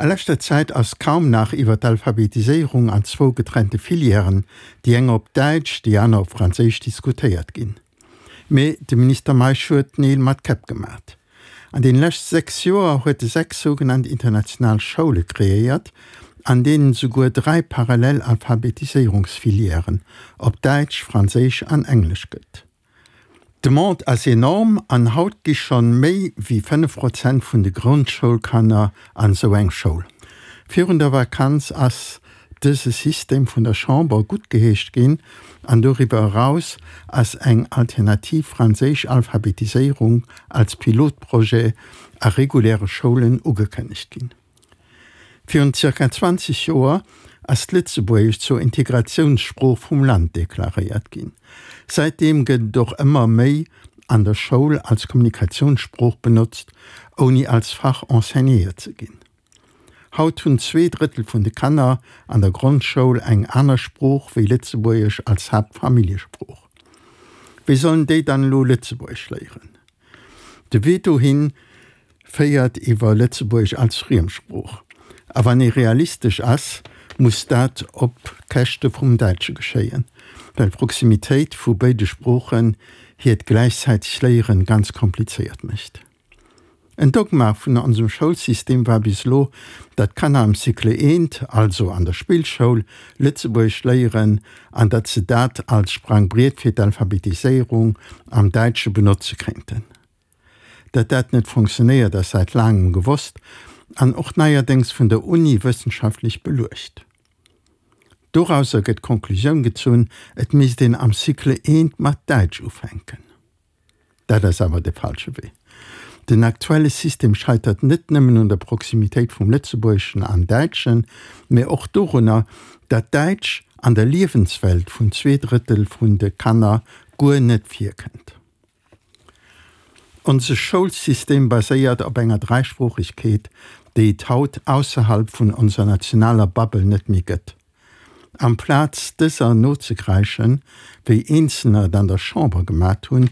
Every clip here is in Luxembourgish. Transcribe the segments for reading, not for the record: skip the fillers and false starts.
A leschter Zäit ass kaum nach iwwer d'Alphabetiséierung an zwou getrennte Filièren, déi eng op Däitsch, déi aner op Franséisch, diskutéiert ginn. Mee de Minister Meisch huet Neel mat Käpp gemat. An den lescht 6 Joer huet e 6 sougenannt international Schoule kreéiert, an deenen souguer 3 parallel Alphabetiséierungsfilièren op Däitsch, Franséisch an Englesch gëtt. D'Demande ass enorm an haut gi schonn méi wéi 5 Prozent vun de Grondschoulkanner an esou eng Schoul. Virun der Vakanz ass dëse System vun der Chamber guttgeheescht ginn an doriwwer eraus ass eng alternativ franséisch Alphabetiséierung als Pilotprojet a reguläre Schoulen ugekënnegt ginn. Virun zirka 20 Joer ass d'Lëtzebuergescht zur Integratiounssprooch vum Land deklaréiert ginn. Säitdeem gëtt et och ëmmer méi an der Schoul als Kommunikatiounssprooch benotzt, ouni als Fach enseignéiert ze ginn. Haut hunn 2/3 vun de Kanner an der Grondschoul eng aner Sprooch wéi Lëtzebuergesch als Haaptfamilljesprooch. Wéi sollen déi dann elo Lëtzebuergesch léieren? De Wee dohin féiert iwwer Lëtzebuergesch als Friemsprooch. A wann ee realistesch ass, muss dat op Käschte vum Däitsche geschéien, well d'Proximitéit vu béide Sproochen hiert gläichzäiteg Léieren ganz komplizéiert mécht. En Dogma vun onsem Schoulsystem war bis elo, datt d'Kanner am Cycle I, also an der Spillschoul, Lëtzebuergesch léieren an datt se dat als Sprangbriet fir d'Alphabetiséierung am Däitsche benotze kéinten. Datt dat net fonctionnéiert ass säit laangem gewosst an och neierdéngs vun der Uni wëssenschaftlech beluecht. Dorauser gëtt d'Konklusioun gezunn, et misst een am Cycle I mat Däitsch ufänken. Dat ass awer de falsche Wee. Den aktuelle System scheitert net nëmmen un der Proximitéit vum Lëtzebuergeschen an Däitschen, mä och dorunner, datt Däitsch an der Liewenswelt vun 2/3 vun de Kanner guer net virkënnt. Onse Schoulsystem baséiert op enger Dräisproochegkeet, déi et haut ausserhalb vun onser nationaler Bubble net méi gëtt. Amplaz dëser nozekräischen, wéi Eenzelner et an der Chamber gemat hunn,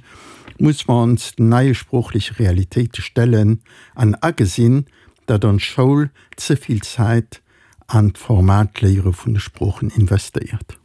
muss mer ons den neie sproochleche Realitéite stellen an agesinn, datt ons Schoul ze vill Zäit an d'formaalt Léiere vun de Sproochen investéiert.